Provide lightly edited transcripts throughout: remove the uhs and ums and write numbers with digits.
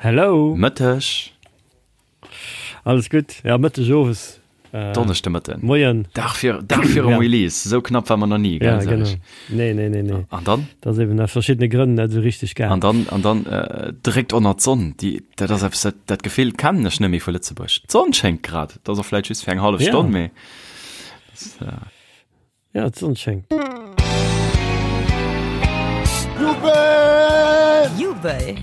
Hello. Mëtteg. Alles gutt? Ja, Mëtteg, Owes. Äh, Donneschde Mëtten. Moien. Dag fir, Dag virum ja. Release. Sou knapp war mer nach nie, gell? Ja, genau. Nee, nee, nee, nee. An dann? Dat ass eben aus verschiddene Grënn net sou richteg gaang. An dann, an dann äh, direkt ënner d'Sonn. Déi, dat ass eppes, dat, dat Gefill kennen ech net méi vu Lëtzebuerg. D'Sonn schéngt grad. Dat ass och vläicht just fir eng hallef ja. Stonn, mee. Das, äh, Ja, d'Sonn schéngt. Jubel! Jubel!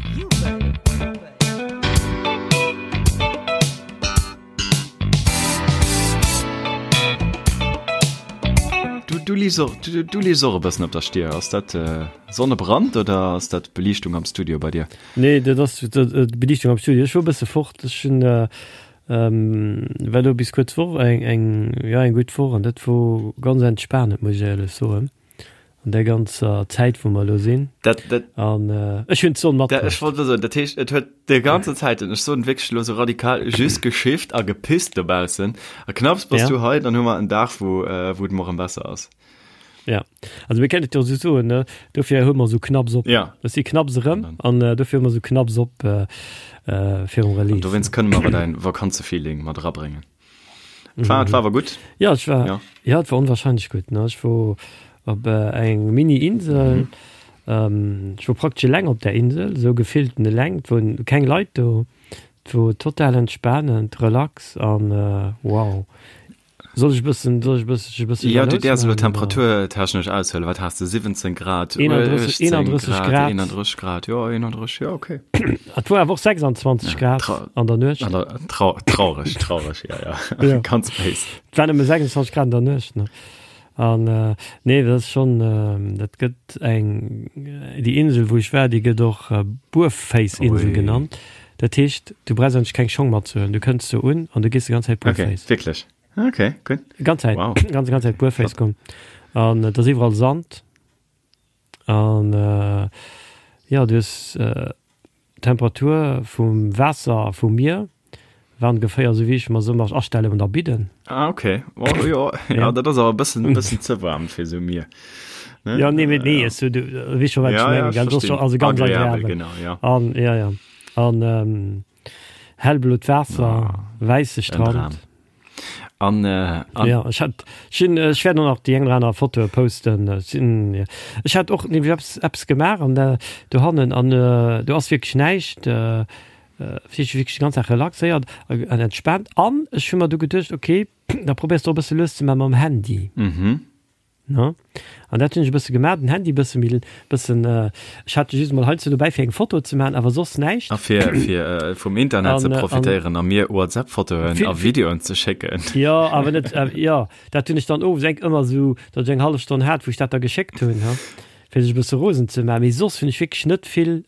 Du, du lies och, du, du lies och e bëssen op der Stier. Ass dat äh, Sonnebrand oder ass dat Beliichtung am Studio bei dir? Nee, dat ass d'Beliichtung am Studio. Ech wor e bësse fort. Ech hunn äh, War elo bis kuerz Woch eng eng jo eng gutt Woch an dat wor ganz entspanend muss ech éierlech soen an där ganzer Zäit wou mer elo sinn. Dat dat An ech hunn d'Sonn dat ech matbruecht. wollt elo soen, dat heescht et huet de ganzen Zäiten, ech soen wierklech elo sou radikal, just geschifft a gepisst dobaussen a knapps bass Ja. du hei, dann hu mer en Dag wou wou et mol erëm besser ass. Ja, also mir kennen et jo sou soen, ne? Dofir hu mer sou knapps op. Ja. Ech si knapps erëm an äh, dofir hu mer sou knapps op äh, äh, virum An Release. dowéinst kënne mer awer däin Vakanzefeeling mat erabréngen. Et war, et war awer gutt. Ja, et war, Ja. ja, et war onwahrscheinlech gutt, ne? Ech wor op äh, eng Mini-Insel. Mhm. Ähm, ech wor praktesch eleng op där Insel, sou gefillten eleng. Et woren keng Leit do. Et wor total entspanend, relax an äh, wow. Soll ech bëssen, soll ech bëssen, ech bëssen Ja, du jalous däers elo maachen, oder? temperaturtechnesch aushuelen. Wat has de? 17 Grad, 31, 18 31 Grad, Grad. 31 Grad, jo, 31, jo, okay. Et wor awer och 26 Ja, Grad trau an der Nuecht. an der, trau traurig, traurig, ja, ja. Ja. Ganz béis. Et war nëmme 26 Grad an der Nuecht, ne? An äh, nee, dat ass schonn, äh, dat gëtt eng, déi Insel, wou ech war, déi gëtt och äh, Buerféiss-Insel Ui. genannt. Dat heescht, du brauchs eigentlech keng Schong matzehuelen. Du kënns do un an du gees déi ganz Zäit Okay, buerféiss. wierklech? Okay, gutt. Ganz Zäit, Wow. ganz, ganz Zäit buerféiss Flott. goen. An et ass iwwerall Sand. An äh, jo, du hues äh, d'Temperatur vum Waasser vum Mier war ongeféier esou wéi ech mer se ëmmer astelle an der Bidden. Ah, okay. Oh, jo, ja, Ja. dat ass awer e bëssen, bëssen ze waarm fir esou Mier. Ne? Ja, nee, mee, nee, Ja. es, du, du weess scho, wat ech Ja, ja, mengen, ech gell? Dat ass scho verstinn. also ganz Agreabel, agreabel. genau, ja. An, ja, ja. An ähm, hellblot Waasser, Ah, wäisse en Strand. Dram. An, äh, an Ja, ech hat, ech hunn, ech wäert och nach déi eng oder aner Fotoe posten. Ech sinn, ja. Ech hat och nämlech eppes, eppes gemaach an der, dohannen an äh, do ass wierklech näischt. Äh, äh, wierklech déi ganz Dag relaxéiert an entspaant. An ech hu mer du geduecht, okay, da probéiers de och e bësse lues ze maache mam Handy. Mhm. Ne? An dat hunn ech e bësse gemaach, den Handy bësse méi, bëssen, ech hat just mol heiansdo dobäi fir eng Foto ze maachen, awer soss näischt. A fir, fir vum Internet ze profitéieren a mir WhatsApp-Fotoen a Videoen ze schécken. Jo, awer net, jo, dat hunn ech dann owes enk ëmmer esou, datt ech eng hallef Stonn hat, wou ech dat da geschéckt hunn, ha. Fir sech e bësse rosen ze maachen. Mee soss hunn ech wierklech net vill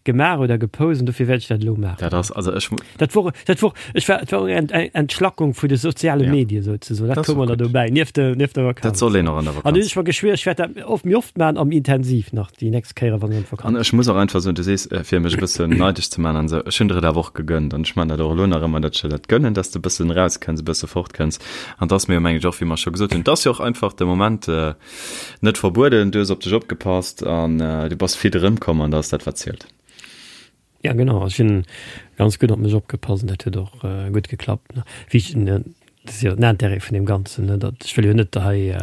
gemaach oder gepost an dofir wäert ech dat elo maachen. Dat ass, also ech. Dat wor, dat wor, ech war, et war och eng Entschlackung vu de soziale Ja. Medie souzesoen. Dat Dat ass koum och mer da gutt. dobäi, nieft de, nieft der Dat Vakanz. soll een och an der An hunn Vakanz. ech mer geschwier, ech wäert dat oft, méi oft maachen a méi intensiv nach déi nächst Kéiere wann ech an An d'Vakanz ech muss och einfach soen, du sees, fir mech e bëssen neideg ze maachen an esou, ech hunn der et awer och gegönnt an ech maachen dat och elo nach ëmmer, datt ech der dat gönnen, datt s de e bëssen erauskënns, e bësse fortkënns. An 't ass mir jo, mengen ech och, wéi mer scho gesot hunn, 't ass jo och einfach de Moment, Net verbueden, du hues op dech opgepasst an du bass fit erëmkomm an dat ass dat wat zielt. Ja genau, ech hunn ganz gutt op mech opgepasst an dat huet och gutt geklappt. Wéi ech, dat ass jo den Intérêt vun deem Ganzen, ne, datt ech wëll jo net hei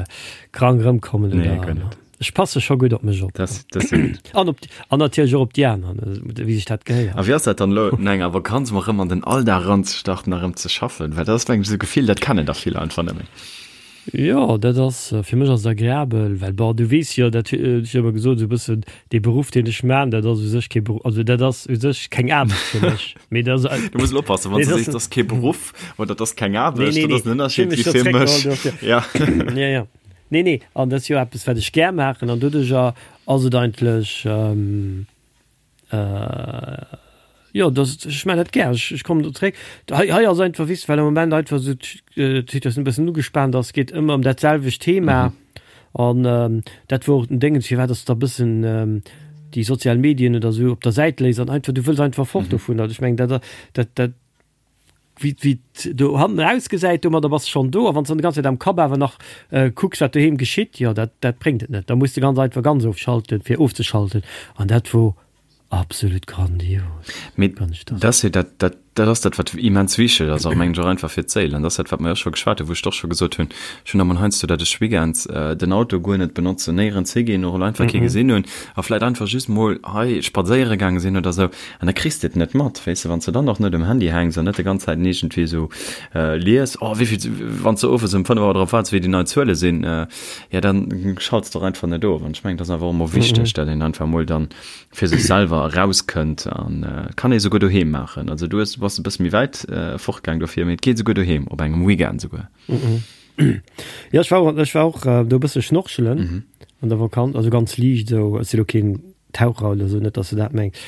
krank erëmkommen Nee, oder, guer net. Ech passe scho gutt op mech op. Dat dat ass jo gutt. An op, an natierlech och op déi aner, ne, wéi sech dat gehéiert. A wéi ass dat dann elo no enger Vakanz mol erëm an den Alldag eranzestarten a erëm ze schaffen? Well dat ass mengen ech esou e Gefill, dat kennen der vill einfach net méi. Jo, dat ass, fir mech ass et agreabel, well bon, du weess jo, dat hunn ech jo ëmmer gesot, esou e bëssen dee Beruff, deen ech man, dat ass u sech kee Beruff, also dat ass u sech keng Aarbecht fir mech, mee dat ass. Du muss elo oppassen, wann Nee, s du dat sees, ass. dat ass kee Beruff oder dat ass keng Nee, Aarbecht, nee, dat nee, ass en ech hunn Ënnerscheed mech wéi do fir mech. zréckgeholl, dofir. Ja. Ja, ja. Nee, nee, an dat ass jo eppes, wat ech gär maachen an doduercher ass et eigentlech, Jo, dat, ech maachen dat gär. Ech kommen do zréck. Hei, hei ass einfach, weess de, well am Moment einfach esou d'Situatioun e bëssen ugespaant ass, geet ëmmer ëm dat selwecht Thema. An dat wor och den Déngens, firwat dass de da e bëssen déi sozial Medien oder esou op der Säit léiss an einfach, du wëlls einfach fort dovunner. Ech mengen, dat, dat, dat, wéi, wéi et do hannen ausgesäit, domadder bass de schonn do. A wann s de dann déi ganz Zäit am Kapp awer nach kucks, wat doheem geschitt, jo, dat, dat bréngt et net. Da muss de ganz einfach ganz ofschalten, fir ofzeschalten. An dat wor. Absolut grandios. Mee dat ass jo dat, dat, dat ass dat, wat immens wichteg ass, och mengen ech och einfach fir d'Séil. An dat ass dat, wat mer jo scho geschwat hunn, wou ech och scho gesot hunn, ech hunn emol heiansdo, datt ech weekends den Auto guer net benotzen, néierens higinn, och einfach kee gesinn hunn a vläicht einfach just mol hei spadséiere gaange sinn oder esou. An da kriss de et net mat, weess de, wann s de dann och net um Handy hänks an net déi ganz Zäit iergendwéi esou lies, oh wéi vill, wann s de owes um 5 Auer drop waarts, wéi déi nei Zuele sinn, jo dann schalts de och einfach net of. An ech mengen, dat ass einfach och emol wichteg, datt een einfach emol dann fir sech selwer erauskënnt an et kann ee souguer doheem maachen. Also du hues, du bass e bësse méi wäit fortgaang dofir, mee et geet souguer doheem, op engem Weekend souguer. Jo, ech war och, ech war och do e bësse schnorchelen an der Vakanz, also ganz liicht esou. Ech si lo keen Taucher oder esou, net dass de dat mengs.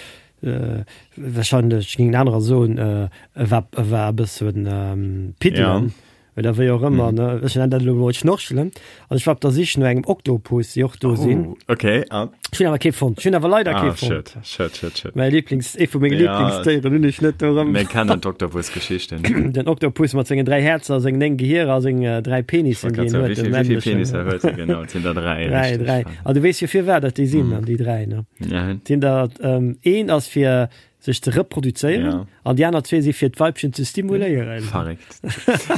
Wahrscheinlech géingen anerer soen, e war, e war e bëssen piddelen. Oder wéi och ëmmer, ne? Ech nennen dat elo mol Schnorchelen. An ech war op der Sich no engem Oktopus, déi och do sinn. Oh, okay. Ah. Ech hunn awer kee fonnt. Ech hunn awer leider ah, kee fonnt. Schöd, schöd, schöd, schöd. Mäi Lieblings, ee vu menge ja, Lieblingsdéieren hunn ech net do erëm. Mir kennen d'Oktopus-Geschichten. Den Oktopus mat sengen 3 Häerzer, sengen 9 Gehierer a seng 3 Penissen, déi en huet. Wéi vill Penisser huet e genau? Et sinn der 3. 3, 3. An du weess jo firwat dat déi sinn, an déi 3, ne? Ja. Sinn der, ähm, een ass fir sech ze reproduzéieren ja. an déi aner zwee si fir d'Weibchen ze stimuléieren. Verréckt.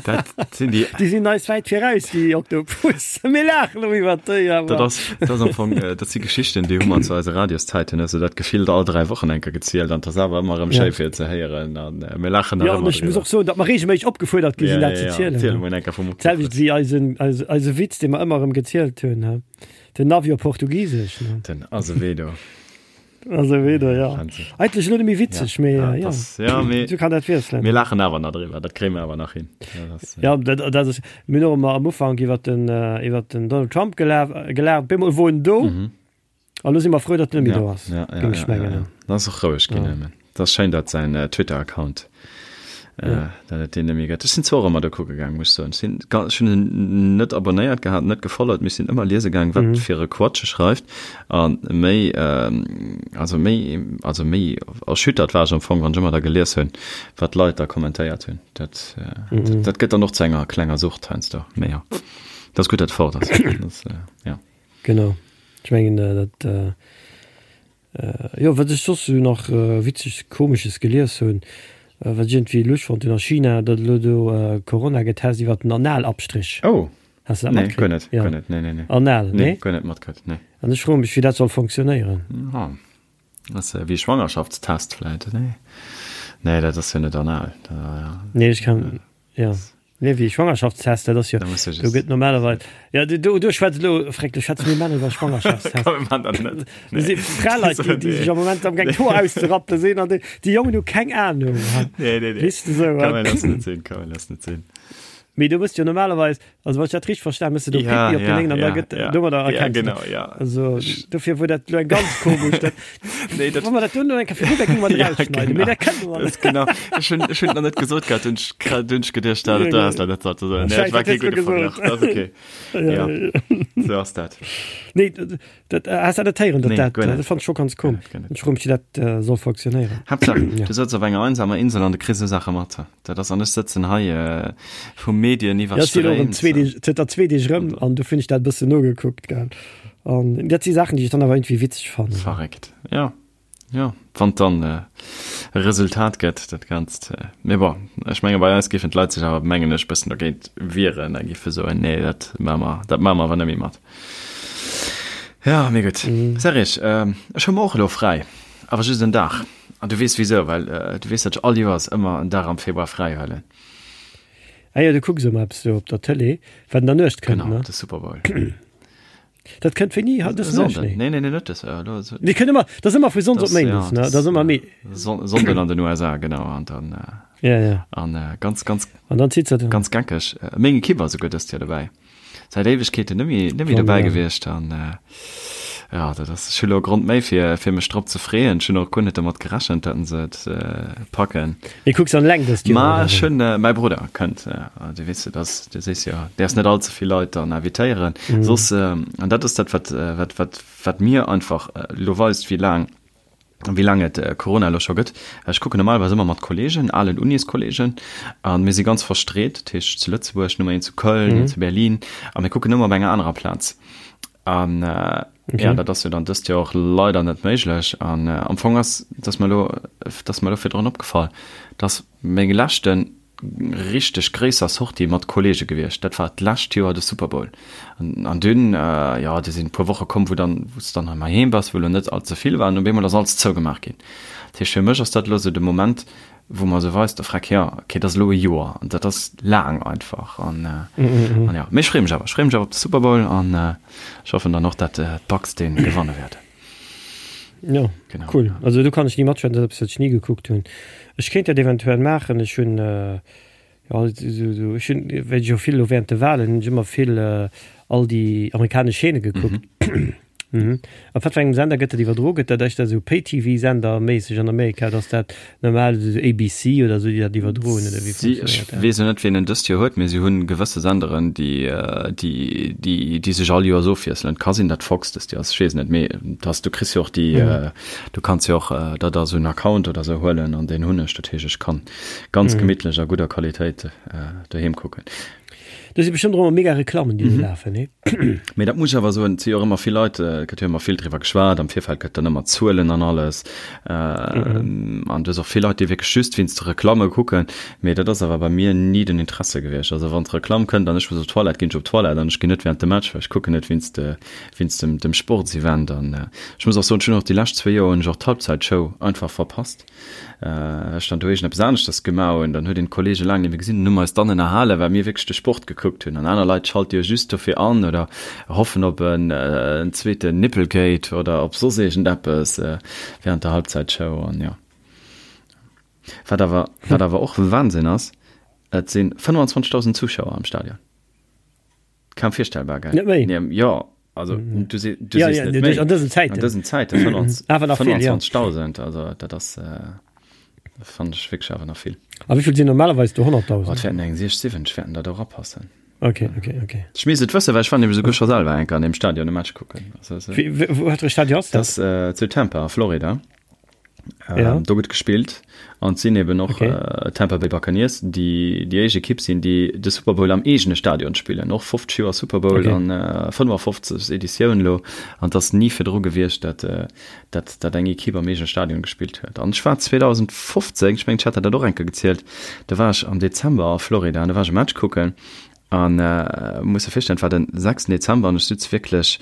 Dat sinn déi. Déi sinn eis wäit viraus, déi Oktopus. Mir laachen elo iwwer déi, awer. Dat ass, dat ass am Fong, äh, dat si Geschichten, déi hu mer zu eise Radioszäiten, hues du dat gefillt all 3 Wochen eng Kéier gezielt an 't ass awer ëmmer erëm Ja. schéi fir ze héieren an äh, mir laachen nach Ja, an ëmmer ech muss driwwer. och soen, datt mer reegelméisseg opgefuerdert gi Ja, sinn, ja, dat ze ja. zielen. Ziel emol eng Kéier vum Oktopus. D'selwecht wéi eisen, eise, eise Witz, dee mer ëmmer erëm gezielt hunn, he? Den Navi op Portugisesch, ne? Den Azevedo. Azevedo, ja. Eigentlech elo net méi witzeg, mee ja, ja. Das, ja, mee, so kann dat wiesselen. Mir laachen awer nach driwwer, dat kréie mir awer nach hin. Ja, das, ja, dat, dat ass, mir hunn och ëmmer am Ufank iwwer den, äh, iwwer den Donald Trump gelaf, gelaacht, op eemol wor en do. Mhm. An elo si mer frou, datt en net méi ja, do ass, ja, ja, géing ech ja, ja, mengen. ja. Dat ass och roueg ginn Ja. nëmmen. Dat ass schéin, datt säin äh, Twitter-Account äh, Ja. datt et deen net méi gëtt. Ech sinn zwar och ëmmer do kucke gaang, muss ech soen. Ech sinn, ga- ech hunn en net abonnéiert gehat, net gefollowt, mee ech sinn ëmmer liese gaang, wat Mhm. fir e Quatsch e schreift. A méi, also méi, also méi erschüttert war ech am Fong, wann ech ëmmer da gelies hunn, wat d'Leit da kommentéiert hunn. Dat, Mhm. dat gëtt dann och zu enger klenger Sucht heiansdo. Mee jo, dat ass gutt, datt et fort ass. Dat, ja. Genau. Ech mengen, dat, Jo, wat ech soss esou nach Witzeges, Komesches gelies hunn, wat ech iergendwéi lusch fonnt hunn, a China, datt elo do Corona getest iwwert den Analabstrich. Oh! Has de dat Nee, guer matkritt? net, Jo. guer net, nee, nee, nee. Anal, Nee, nee? guer net matkritt, nee. An ech froe mech, wéi dat soll fonctionnéieren. Ah, ass wéi e Schwangerschaftstest vläit, nee? Nee, dat ass jo net anal, da, ja. Nee, ech kann, jo. Nee, wéi Schwangerschaftstest, dat ass jo, Da muss ech do es. gëtt normalerweis, ja, do, do schwätzt elo, freck, do schwätze mir Männer iwwer Schwangerschaftstest. Komm, mir man dat net. Do si Fraleit, déi, déi sech am Moment am gaang d'Hoer auszerappele sinn an déi, déi Jongen hu keng Ahnung. Nee, nee, nee. Weess de sou, Kann man lass net sinn, kann man lass net sinn. Mee do mëss jo normalerweis, Also wann ech dat richteg verstan, mëss de do Ja, Pipi op den ja, Léngen an da ja, gëtt ja. domadder Ja, erkenns du genau, dat. ja. Also dofir wor dat elo eng ganz komesch dat Nee, dat wa mer dat duerno eng Kéier virdu, da géinge mer dat Ja, rausschneiden, mee genau. dat kënne mer Dat net. ist genau. Ech hunn ech hunn et nach net gesot gehat, hunn ech grad hunn ech geduecht, dat Ja, dat ass genau. dat net ze soen. Nee, Scheiss, dat war dat kee hues du gudde gesot. Verglach. Dat ass okay. Ja, Ja, ja. sou ass dat. Nee, dat dat has dat net héieren, dat Nee, dat guer net. dat fand ech scho ganz Guer komesch. net, guer net. Ech froe mech, wéi dat soll fonctionnéieren. Haaptsaach, Ja. du sëtz op enger einsamer Insel an du kriss esou Saache mat. Dat ass, an ech sëtzen hei vu Medien Ja, ech sinn och erëm iwwerstréimt. zwee Deeg, zënter zwee Deeg erëm an du hunn ech dat e bëssen nogekuckt, gell. An dat si Saachen, déi ech dann awer iergendwéi witzeg fannen. Verréckt, jo, jo, wann et dann e Resultat gëtt, dat Ganzt. Mee bon, ech menge bei eis géifen d'Leit sech awer, mengen ech, bëssen dogéint wieren a géife soen, nee, dat maache mer, dat maache mer awer net méi mat. Jo, mee gutt. Serge, ech hu mer och elo fräi, awer just en Dag. An du weess wisou, well du weess, datt ech all Joers ëmmer en Dag am Februar fräi huelen. Ah jo, du kucks ëmmer eppes do op der Tëlee, wat an der Nuecht kënnt, Genau, ne? de Super Bowl. Dat kënnt wéini? Haut dës Nuecht? Sonnden. Nee. Nee, nee, nee, net dës, elo. Nee, kënnt ëmmer, dat ass ëmmer vu Sonndes op Das, ja, Méindes, ne? das, Dat ass ëmmer méi. Son Sonnden an den USA, genau, an dann, Ja, ja. an ganz, ganz, An dann zitt se dann. ganz geckeg. Meng Ekipp war souguer dëst Joer dobäi. Säit Éiwegkeeten net méi, net méi dobäi gewiescht an ja, dat ass, ech hu lo e Grond méi fir, fir mech drop ze freeën. Ech hunn och guer net domat gerechent, datt se et packen. Mee kucks an eleng dëst Joer, Ma oder ech wéi? hunn, mäi Brudder kënnt, du weess jo, dass, du sees jo, däerfs net all ze vill Leit dann invitéieren, soss, an dat ass dat, wat, wat, wat, wat mir einfach elo weist, wéi laang, wéi laang et Corona elo scho gëtt. Ech kucken normalerweis ëmmer mat Kollegen, alen Uniskolleegen, a mir si ganz verstreet, dat heescht zu Lëtzebuerg, nummer een zu Köln, een zu Berlin, a mir kucken ëmmer op enger anerer Plaz. An okay. ja, dat ass jo dann dëst Joer och leider net méiglech. An äh, am Fong ass, dass mer lo, dass mer lo virdrun opgefall, dass meng leschten richteg gréisser Sortie mat Kollege gewiescht. Dat war d'lescht Joer de Super Bowl. An, an dunn, äh, ja, do sinn e puer Woche komm, wou dann, wou s dann hei heem bass, wou lo net all ze vill war, an op eemol ass alles zougemaach ginn. Dat heescht, fir mech ass dat lo sou de Moment, wou mer sou weist, freck, ja, okay, dat ass elo e Joer an dat ass laang einfach an, äh, an ja, mee ech freeë mech awer, ech freeë mech awer op de Super Bowl an äh, ech hoffen dann och, dat äh, d'Bucks dee gewanne wäerten. Ja, genau. Cool. Also do kann ech ni matschwätzen, dat ass eppes, wat ech ni gekuckt hunn. Ech kéint dat eventuell maachen, ech hunn äh, ja, sou, sou, ech hunn, well ech jo vill elo während de Wahlen hunn ech ëmmer vill äh, all déi amerikanesch Chaîne gekuckt. Mhm. Mhm. Op wat fir engem Sender gëtt dat iwwerdro? Gëtt dat éischter esou Pay-TV-Sender-méisseg an Amerika oder ass dat normal esou ABC oder esou, déi dat iwwerdroen oder wéi Si, ech funktionéiert dat? weess elo net, wien en dëst Joer huet, mee si hunn gewësse Senderen, déi, déi, déi, déi sech all Joers ofwiesselen. Et ka sinn, datt Fox dëst Joer ass, ech weess et net, mee dass, du kriss jo och déi, du kanns jo och der da esou en Account oder esou huelen an deen hunn ech. Dat heescht, ech kann ganz gemittlech a gudder Qualitéit doheem kucken. Do si bestëmmt och ëmmer mega Reklammen, déi do lafen, nee? Mee dat muss ech awer soen, et si jo och ëmmer vill Leit, et gëtt jo ëmmer vill driwwer geschwat, am Virfeld gëtt dann ëmmer Zuelen an alles. An du hues och vill Leit, déi wierklech just wéinst de Reklamme kucken. Mee dat ass awer bei mir ni den Interesse gewiescht. Also wann d'Reklamm kënnt an ech muss op d'Toilette, ginn ech op d'Toilette an ech ginn net wärend dem Match, well ech kucken net wéinst wéinst dem dem Sportsevent. An ech muss och soen, ech hunn och déi lescht zwee Joer hunn ech och d'Halbzeitshow einfach verpasst. Ech dann do iergendeppes aneschters gemaach hunn, dann huet een d'Kollege laang net méi gesinn, dann hu mer eis dann ënnerhalen, well mir wierklech de Sport gekuckt hunn. An aner Leit schalte jo just dofir an oder hoffen op en zweeten Nipplegate oder op soss iergendeppes während der Halbzeitshow. An jo, wat awer, wat awer och Wahnsinn ass, et si 25.000 Zuschauer am Stadion. Kaum virstellbar, gell? Net méi? Nee, jo, also mm. du, se, du ja, ja, net méi. An dësen Zäiten. An dësen Zäiten, 25.000, ja. also dat ass, äh, fand ech wierklech awer nach vill. A wéi vill sinn normalerweis do 100.000? Oh, et wäerten eng 60, 70 wäerten da do rapassen. Okay, okay, okay. Ech misst et wëssen, well ech war nämlech souguer scho selwer eng Kéier an deem Stadion e Match kucken. Also, also, Wéi, wou, wat fir e Stadion ass dat? Das äh, zu Tampa, Florida. Ja. Ähm, do gëtt gespillt an sinn eben och okay. äh, Tampa Bay Buccaneers, déi déi éischt Ekipp sinn, déi de Super Bowl am eegene Stadion spillen. Och 50 Joer Super Bowl okay. an äh, 55 Editioun lo an das nie virdru gewiescht, dat, äh, dat, dat eng Ekipp am eegene Stadion gespillt huet. An ech war 2015, ech mengen, ech hat dat och enke gezielt, da war ech am Dezember a Florida an da war ech e Match kucken An muss der virstellen, et war den 6 Dezember an ech sutz wierklech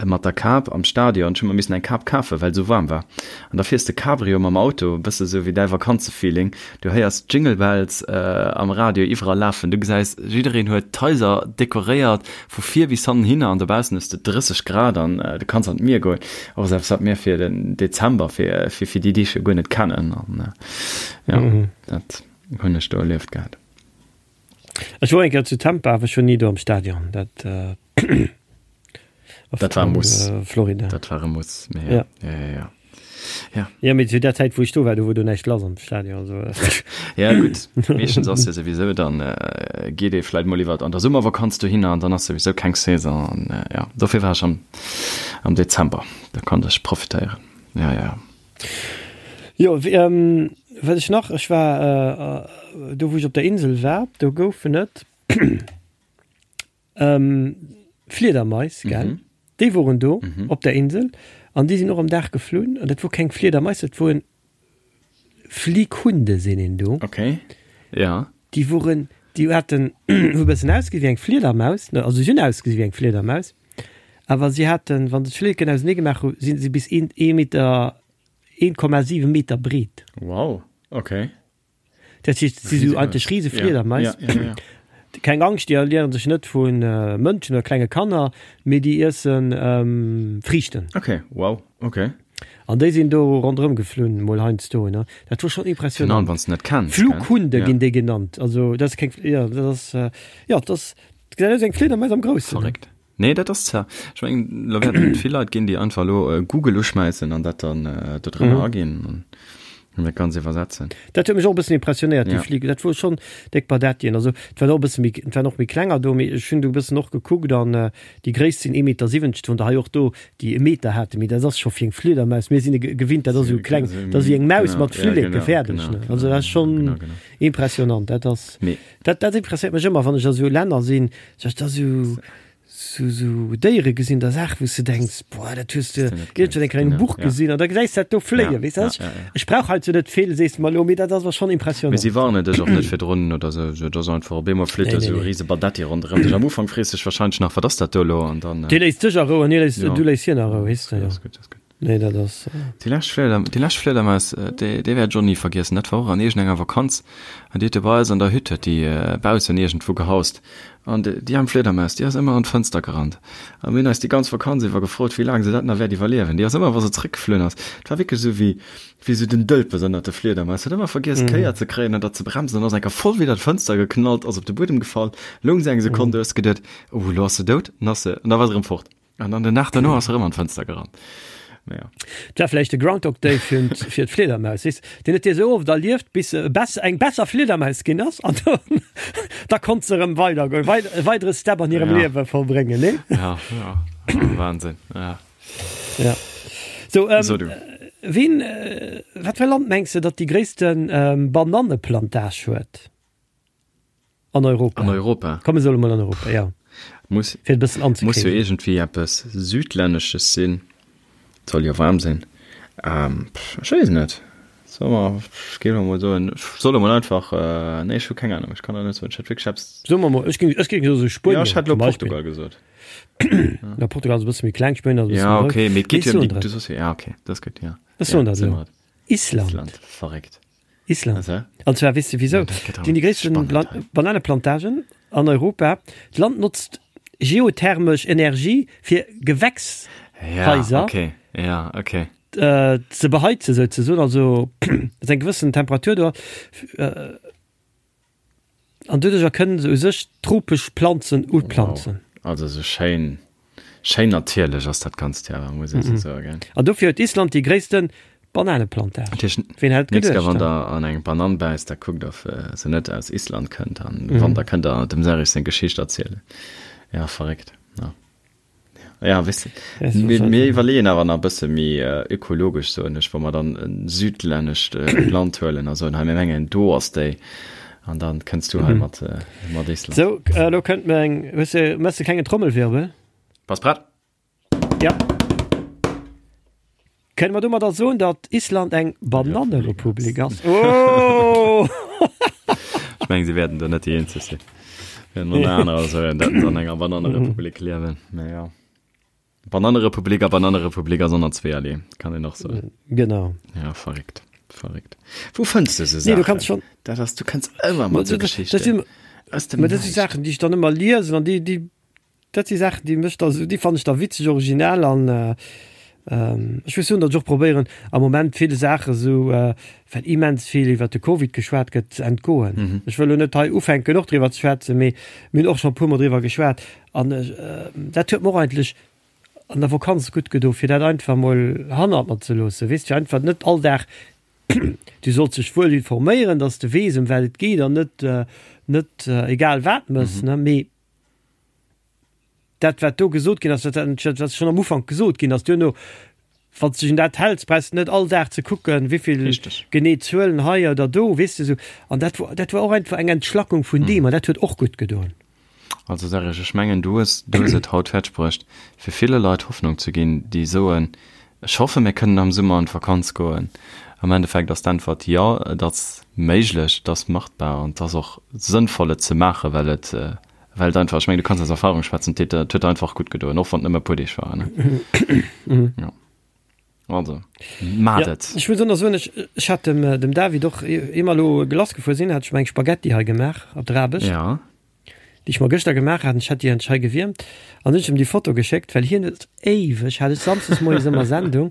mat der Kap am Stadion. Ech hu mer missen eng Kap kafen, well et esou waarm war. An da fiers de Cabrio mam Auto, e bësse sou wéi däi Vakanzefeeling. Du héiers d'Jingle Bells am Radio iwwerall lafen. Du gesäis, jiddereen huet d'Haiser dekoréiert vu vir bis hannen hinner an dobaussen hues de 30 Grad an du kanns an d'Mier goen. Och eppes, wat mir fir den Dezember, fir fir déi Deeg jo guer net kennen. An jo, dat hunn ech do erlieft gehat. Ech wor eng Kéier zu Tampa, awer ech wor ni do am Stadion. Dat, äh, dat war e Muss. Äh, Florida. Dat war e Muss. Mee, ja. Ja. Ja, ja, ja. Ja. Ja, mee zu der Zäit, wou ech do war, do wor do näischt lass am Stadion. Also, ja, gutt. Meeschtens ass jo souwisou, dann äh, geet ee vläit mol iwwer an der Summervakanz dohinner an dann ass souwisou keng Saison. An, äh, ja, dofir war ech am, am Dezember. Da konnt ech profitéieren. Ja, ja. Jo, ähm, wat ech nach, ech war äh, do wou ech op der Insel war, do goufen et ähm, Fliedermais, gell? Mhm. Déi woren do mhm. op der Insel an déi sinn och am Dag geflunn an dat wor keng Fliedermais, dat woren Flighunde sinn een do. Okay. Ja. Déi woren, déi haten hu e bëssen ausgesi wéi eng Fliedermaus, ne, also si hunn ausgesi wéi eng Fliedermaus. Awer si haten, wann se d'Flilleken ausenee gemaach hu, si se bis een ee Meter, 1,7 Meter breet. Wow, okay. Dat heescht, si sou eigentlech rise Fliedermais. Ja, ja, ja. Keng Angscht, déi ernieren sech net vu Mënschen oder klenge Kanner, mee déi iessen Friichten. Okay, wow, okay. An déi sinn do ronderëm geflunn, mol heiansdo, ne. Dat wor schonn impressionant. Genau, wann s de net kenns, gell? Flughunde ginn déi genannt. Also dat ass keng, jo, dat ass, jo, dat ass, dat gesäit aus wéi eng Fliedermais am Groussen. Verréckt. Nee, dat ass zwar, ech mengen, lo wäerten et vill Leit ginn, déi einfach elo Google uschmäissen an dat dann do drënner aginn an dat Ganzt iwwersetzen. Dat huet mech och e bëssen impressionéiert, déi Fliger. Dat wor schonn déck Badettien. Also et waren och e bësse méi, et waren och méi klenger do, mee ech hunn do e bëssen och gekuckt an déi gréisst sinn ee Meter 70, do hunn der hei och do, déi e Meter haten, mee dat ass scho fir eng Fliedermaus, mir sinn e gewinnt, dat ass esou kleng, dat ass wéi eng Maus mat Flilleke, fäerdeg, ne. Also dat ass schonn impressionant. Dat ass, dat dat impressionéiert mech ëmmer, wann ech a sou Länner sinn, dat ass esou. Sou sou Déiere gesinn, da Saache wou s de denks, boah, dat hues de iergendwann eng Kéier an engem Buch gesinn an da gesäis de dat do fléien, weess de. Ech brauch heizou net vill, sees de mer elo, mee dat ass awer schonn Mee impressionnant. si warnen dech och net virdrun oder sou, sou et ass einfach op eemol flitt Nee, do nee, sou e nee. rise Badetti ronderëm dech. Am Ufank frees de dech warscheinlech nach, wat ass dat do elo an dann. Dee léisst dech a Rou an hie léisst, Jo. du léiss hien a Rou, weess de, Dat jo. ass gutt, dat ass gutt. Nee, dat ass. Déi lescht Flieder, déi lescht Fliedermaus, déi, déi wäert ech och ni vergiessen. Dat war och an iergendenger Vakanz. An déi huet do bei eis an der Hütt, huet déi baussen iergendwou gehaust. An déi, déi aarm Fliedermaus, déi ass ëmmer an d'Fënster gerannt. A mir hunn eis déi ganz Vakanz iwwer gefrot, wéi laang se dat nach wäert iwwerliewen. Déi ass ëmmer, wa se zréckgeflunn ass, et war wierklech esou wéi, wéi esou den Dëlpes ënnert de Fliedermaus, huet ëmmer vergiess d'Kéier ze kréien an dat ze bremsen an ass eng Kéier voll widder d'Fënster geknallt, ass op de Buedem gefall, loung se eng Sekonn, du hues geduet, oh, elo ass se dout, an ass se, an da war se erëm fort. An dann den Dag derno ass se erëm an d'Fënster gerannt. Mä ja. Et war vläicht de Groundhog Day fir fir d'Fliedermaus, weess, deen huet dee sou oft erlieft, bis se e bess eng besser Fliedermaus ginn ass an dann da konnt se erëm weidergoen, wei e weidere Step an hirem Ja. Liewe vollbréngen, nee? Ja, ja. Wahnsinn, ja. Ja. So, ähm, So, du. ween, wat fir e Land mengs de, datt déi gréisste Bananneplantage huet? An Europa. An Europa. Komm, mir solle mol an Europa, ja. Muss, Fir et e bëssen muss jo anzekriegen. iergendwéi eppes Südlännesches sinn. Et soll jo waarm sinn. Ähm, pff, ech weess net. Solle mer, ech géif elo mol soen, ech soll elo mol einfach, äh, nee, ech hu keng Ahnung, ech kann der net soen. Ech hätt wierklech eppes. Soe mer mol, ech géing, ech géing soe Ja, Spuenien ech hätt elo zum Beispill. Portugal gesot. Ja, Portugal ass e bësse méi kleng, Spuenien ass e bësse Ja, méi grouss. okay, mee et Mee geet ech jo ëm soen déi, der du et. soss jo, ja, okay, dat ass gutt, ja. Ech Ja, soen der et soe elo. mer et. Island. Island, verréckt. Island. An zwar weess de wisou? Déi hunn déi gréissten Bananeplantagen an Europa. D'Land notzt geothermesch Energie fir Gewächshaiser ze beheizen souzesoen, also dass eng gewëssen Temperatur do ass. An doduercher kënnen se u sech tropesch Planzen uplanzen. Wow, also sou schéin, schéin natierlech ass dat Ganzt jo awer, muss ee sou soen, gell? An dofir huet Island déi gréisste Bananeplantage. Dat heescht, Ween hätt et nächst Kéier geduecht, wann he? der an eng Banann bäisst, da kuckt of se net aus Island kënnt an wann, da kënnt der dem Serge seng Geschicht erzielen. Ja, verréckt, ja. Ja, weess de, mir, mir iwwerleeën awer nach e bësse méi ökologesch, soen ech, wa mer dann e südlännescht Land huelen a soen, hei mir mengen do ass déi, an dann kënns du hei mat, mat Island. Sou, elo kënnt mir eng, hues de, méchs de klengen Trommelwirbel? Bass prett? Ja. Kënne mer domadder soen, datt Island eng Banannerepublik ass? Oh! Ech mengen, si wäerten do net déi eenzeg sinn. Wäerten och nach anerer soen, datt se an enger Banannerepublik liewen. Mä jo. Banannerepublik a Banannerepublik ass och nach zweeërlee, kann een och soen. Genau. Ja, verréckt. Verréckt. Wou fënns du esou Nee, du kanns Saachen? schonn. Dat ass, du kënns ëmmer mat esou Dat Geschichten. sinn, Aus dem mä dat si Näischt. Saachen, déi ech dann ëmmer liesen an déi, déi Dat si Saachen, déi mech da sou, déi fannen ech da witzeg, originell an ech muss soen, datt ech och probéieren am Moment ville Saache sou, well immens vill iwwert de Covid geschwat gëtt, ze entgoen. Ech wëll elo net hei ufänken och driwwer ze schwätzen, mee mir hunn och scho e puermol driwwer geschwat an dat huet mer och eigentlech an der Vakanz gutt gedo fir dat einfach mol hannert mer ze loossen, weess de, fir einfach net all Dag, du solls dech wuel informéieren, datt s de weess ëm wat et geet an net net egal wat mëss, ne, mee Dat, wat do gesot ginn ass, dat, dat, wat schonn am Ufank gesot ginn ass, duerno, wann s de dech un dat häls, brauchs de net all Dag ze kucken, wéivill Richtig. genee Zuelen hei oder do, weess de, esou. An dat wor, dat war och einfach eng Entschlackung vun deem an dat huet och gutt gedoen. Also Serge, ech mengen, du hues, du hues et haut fäerdegbruecht, fir ville Leit Hoffnung ze ginn, déi soen, Ech hoffe mir kënnen am Summer an d'Vakanz goen. Am Endeffekt ass d'Äntwert, Jo, et ass méiglech, et ass machbar an et ass och sënnvoll, et ze maachen, well et, well et einfach, ech mengen, du kanns aus Erfahrung schwätzen, et huet der einfach gutt gedoen, och wann et nëmme e puer Deeg waren. Jo, also maacht Ja, et! ech muss och nach soen, ech, ech hat dem, dem David och, ier mer elo lass gefuer sinn, hat ech mer eng Spaghetti hei gemaach op der Aarbecht. Ja. déi ech mer gëschter gemaach hat, ech hat déi endlech hei gewiermt an hunn ech em déi Foto geschéckt, well hien huet éiweg, hat ech samsdes moies ëmmer Sendung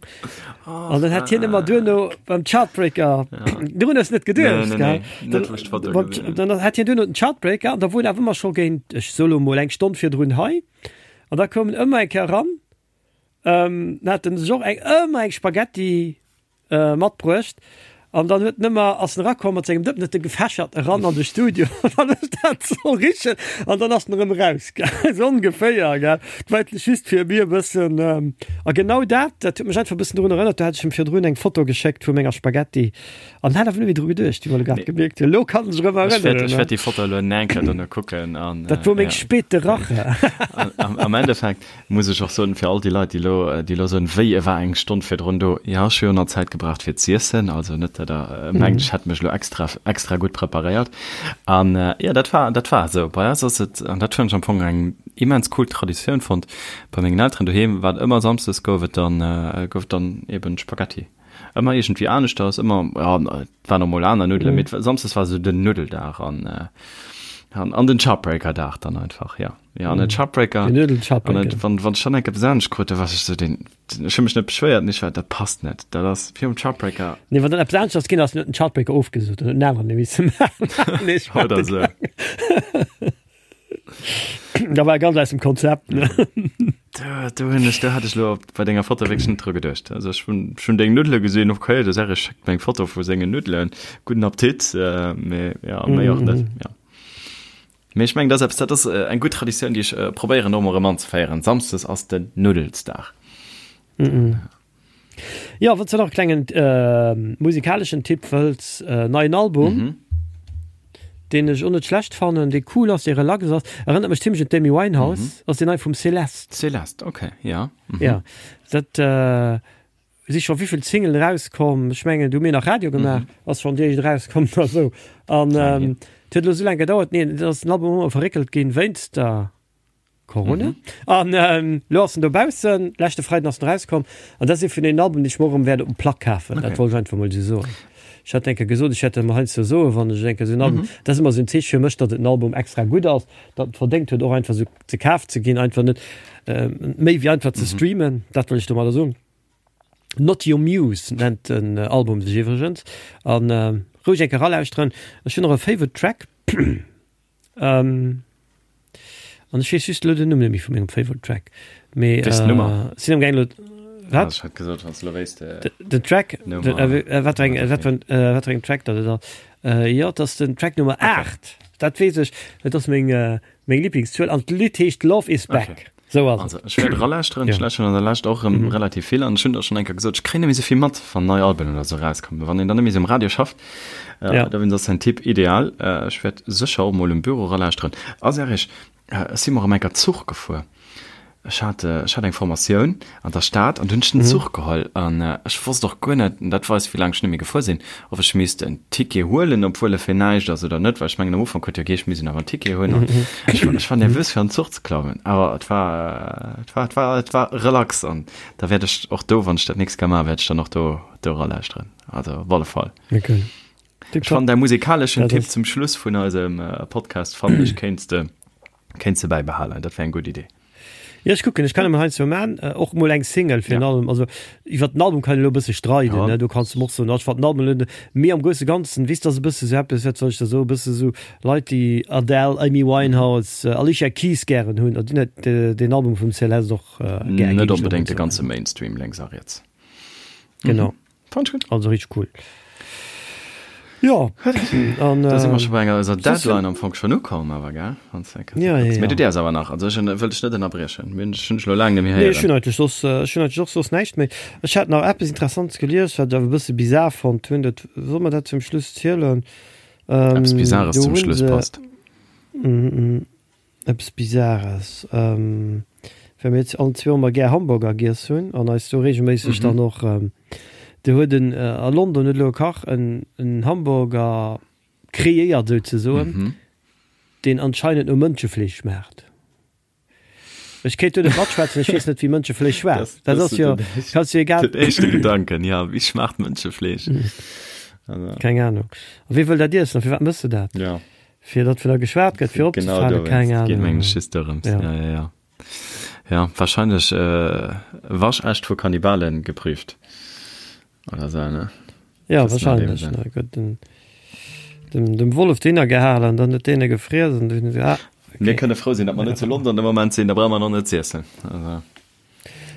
an dann hat hien ëmmer duerno beim Chartbreaker, dorun hues net geduecht, gell? Dann hat hien duerno den Chartbreaker an da wor en awer ëmmer scho géint, ech soe lo mol eng Stonn virdrun hei an da koum en ëmmer eng Kéier eran, dann hat en sech och eng ëmmer eng Spaghetti matbruecht. An dann huet en ëmmer, ass en erakomm mat sengem Dëppen, huet e gefächert eran an de Studio an dann huet dat soll richen an dann ass en erëm eraus, gell, esou ongeféier, gell. Dat war eigentlech just fir mir e bëssen, a genau dat, dat huet mech einfach e bëssen drun erënnert, do hat ech him virdrun eng Foto geschéckt vu menger Spaghetti an hat awer net méi dru geduecht, wéi mer elo grad gemierkt hunn. Elo kann en sech erëm Ech wäert, ech wäert déi Foto elo eng Kéier dono kucken an. Dat wor meng spéite Rache. Am Endeffekt Muss ech och soen, fir all déi Leit, déi elo, déi elo soen, wéi, e war eng Stonn virdrun do. Jo, ech hu jo nach Zäit gebraucht fir z'iessen, also net, datt Der mengt, ech hätt mech elo extra, extra gutt preparéiert. An jo, dat war, dat war esou. Bei eis ass et, an dat hunn ech am Fong eng immens cool Traditioun fonnt, bei mengen Elteren doheem war et ëmmer samsdes gouf et dann, gouf et dann eben Spaghetti. Ëmmer iergendwéi aneschters, ëmmer, ja, et waren och mol aner Nuddelen, mee samsdes war esou den Nuddeldag an, an den Chopbreaker-Dag dann einfach, jo. Ja, an den Chopbreaker. Den Nuddel Chopbreaker. Wann, wann schon enke besonnesch krut, da war ech so den, ech hu mech net beschwéiert, nicht, dat passt net. Dat ass virum Chopbreaker. Nee, wann dann eppes aneschters ginn ass, huet den Chopbreaker ofgesot an huet en aneren misse maachen. Nee, ech Oder so. Da war ganz aus dem Konzept, ne? Do, do hunn ech, do hat ech lo bei denger Foto wierklech net dru geduecht. Also ech hunn, ech hunn deng Nuddele gesinn, okay, de Serge schéckt mir eng Foto vu sengen Nuddelen, gudden Appetit, äh, mee ja, méi och net, ja. Mee ech mengen, dat ass eppes, dat ass eng gutt Traditioun, déi ech probéieren och emol erëm anzeféieren. Samsdes ass den Nuddelsdag. Jo, wann s de nach e klengen musikaleschen Tipp wëlls, neien Album, deen ech och net schlecht fannen, dee cool ass, dee relax ass, erënnert mech zimmlech un d'Amy Winehouse, ass deen nei vum Celeste. Celeste, okay, ja. Jo, dat. Si scho wéivill Singlen erauskomm? Ech mengen, du hu mir nach Radio gemaach, ass schonn déi éischt erauskomm oder esou. An et huet elo esou laang gedauert, nee, et ass den Album ëmmer verréckelt ginn wéinst der Corona. An elo ass en dobaussen, leschte Freiden ass en erauskomm. An dat ass ee vun deenen Alben, déi ech mer och erëm wäert op dem Plack kafen. Dat wollt ech einfach mol esou soen. Ech hat eng Kéier gesot, ech hätt dat emol heiansdo soen, wann ech eng Kéier esou en Album, dat ass ëmmer esou en Zeeche fir mech, datt et en Album extra gutt ass, datt en verdéngt huet och einfach esou ze kaf ze ginn, einfach net méi wéi einfach ze streamen, dat wëll ech domadder soen. Not Your Muse nennt den Album sech iwwregens an roueg eng Kéier eralauschteren. Ech hunn och e Favorite Track an ech weess just elo den Numm net méi vu mengem Favorite Track, mee sinn am gaang elo, wat? Ech hat gesot, wann s de elo wéisst Den Track, wat fir eng, wat fir wat fir engem Track dat et ass? Jo, et ass den Track Nummer 8, dat weess ech, dat ass meng Meng Lieblingszuel an d'Lidd heescht Love is Back. Okay. Sou ass et. Also, ech wäert eralauschteren. Ech lauschteren an der Lescht och erëm relativ vill an ech hunn der schonn eng Kéier gesot, ech kréien net méi sou vill mat, wann nei Alben oder sou erauskommen. Wann een dann net méi sou um Radio schafft, Ja. dowéinst ass däin Tipp ideal. Ech wäert sécher och mol um Büro eralauschteren. A Serge, ech si mer erëm eng Kéier Zuch gefuer. Ech hat, ech hat eng Formatioun an der Stad an du hunn ech den Zuch geholl an ech wosst och guer net, an dat weist wéi laang ech net méi gefuer sinn, ob ech misst en Ticket huelen, obwuel e fir näischt ass oder net, well ech mengen am Ufank huet jo geheescht, mir missten awer en Ticket hunn an ech war, ech war nervös fir an den Zuch ze klammen, awer et war, et war, et war, et war relax an da wäert ech och do, wann ech dat nächst Kéier maachen, wäert ech dann och do, do eralauschteren, also op alle Fall. Okay. Ech fannen däi musikaleschen Tipp zum Schluss vun eisem Podcast fannen ech kéints de Kéints de bäibehalen, dat wär eng gutt Idee. Jo, ech kucken, ech kann emol heiansdo man, och mol eng Single fir en Album. Also iwwer den Album kann een elo e bësse streiden, ne, do kanns de mer och soen, ech fannen den Album elo net, mee am grousse Ganzen, weess, dat ass e bësse sou eppes, wat soll ech da soen, e bësse sou Leit, déi Adele, Amy Winehouse, Alicia Keys gären hunn, déi hunn deen Album vum Celeste och gär, géing ech Net elo mol onbedéngt de soen. ganze Mainstream lénks a riets. Genau. Fand ich gut. Also richtig cool. Ja, an, da si mer scho bei enger eiser Deadline am Fong schon ukomm, awer gell? Ja, ja, ja. Mee du däers awer nach, also ech wëll dech net ënnerbriechen. Mir hunn dech elo laang net méi héieren. Nee, ech hunn eigentlech soss, ech hunn eigentlech och soss näischt méi. Ech hat nach eppes Interessantes gelies, wat ech awer e bësse bizar fonnt hunn. Dat, soll mer dat zum Schluss zielen? Eppes Bizares zum Schluss passt. Eppes Bizares, well mir jetzt allen zwou ëmmer gär Hamburger giess hunn an eis do regelméisseg dann och, do huet en a London huet elo e Kach en en Hamburger kreéiert souzesoen, deen anscheinend no Mënschefleesch schmaacht. Ech kéint do net matschwätzen, ech weess net wéi Mënschefleesch schmaacht. Dat ass jo, kanns jo egal. Den éischte Gedanken, ja, wéi schmaacht Mënschefleesch? Keng Ahnung. A wee wëll dat iessen a firwat mëss de dat? Ja. Fir datt vun der geschwat gëtt, fir opzefalen, keng Ahnung. Geet mengen ech just dorëms. Ja, ja, ja. Ja, wahrscheinlech äh, waschecht vu Kannibalen geprüft. Oder so, ne? Ja, wahrscheinlech. Ne? Gëtt den, dem, dem Wollef deen gehalen an dann huet deen e gefriess an dunn, ah, okay. Mir kënne frou sinn, datt mer net zu London de Moment sinn, da brauche mer nach net z'iessen. Also.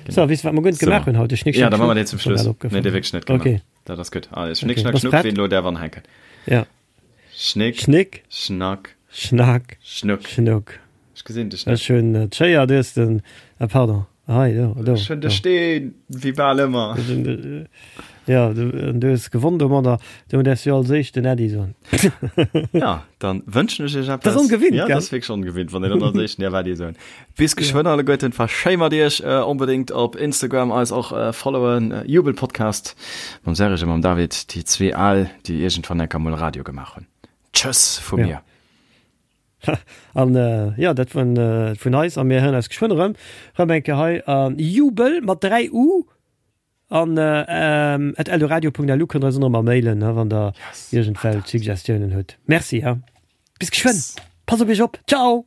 So, weess du, wat mer guer net gemaach hunn haut? De Schnick, Ja, Schnack, da maache mer Schnuck. deen zum Ass mir Schluss. grad Nee, opgefall. dee wierklech net gemaach. Okay. Dat ass gutt. Allez, Schnick, Okay. Schnack, Bass Schnuck, prett? ween elo däerf anhänken. Ja. Schnick, Schnick, Schnack, Schnack, Schnuck. Schnuck. Ech gesinn dech net. Ech hunn d'Schéier, du hues den, ah pardon, hei, do, do. Ech hunn de do. Steen, wéi bal ëmmer. Ech hunn de, ja, du, an du hues gewonn domadder, do däerfs du als éischt den Äddi soen. Ja, dann wënschen ech iech eppes. Dat ass ongewinnt, Ja, gell? dat ass wierklech ongewinnt, wann een dann als éischten däerf Äddi soen. Bis geschwënn alleguerten, war schéi mat iech. Onbedéngt op Instagram eis och followen, Jubelpodcast mam Serge a mam David, déi zwee Al, déi iergendwann enker mol Radio gemaach hunn. Tschëss vu mir. An jo, dat vun vun eis a mir héieren eis geschwënn erëm. Rëm eng Kéier hei a Jubel mat 3 U an at eldoradio.lu kënnt der eis och nach ëmmer mailen, wann der iergendwelch Suggestiounen hutt. Merci, ha. Bis geschwënn. Passt op iech op. Ciao!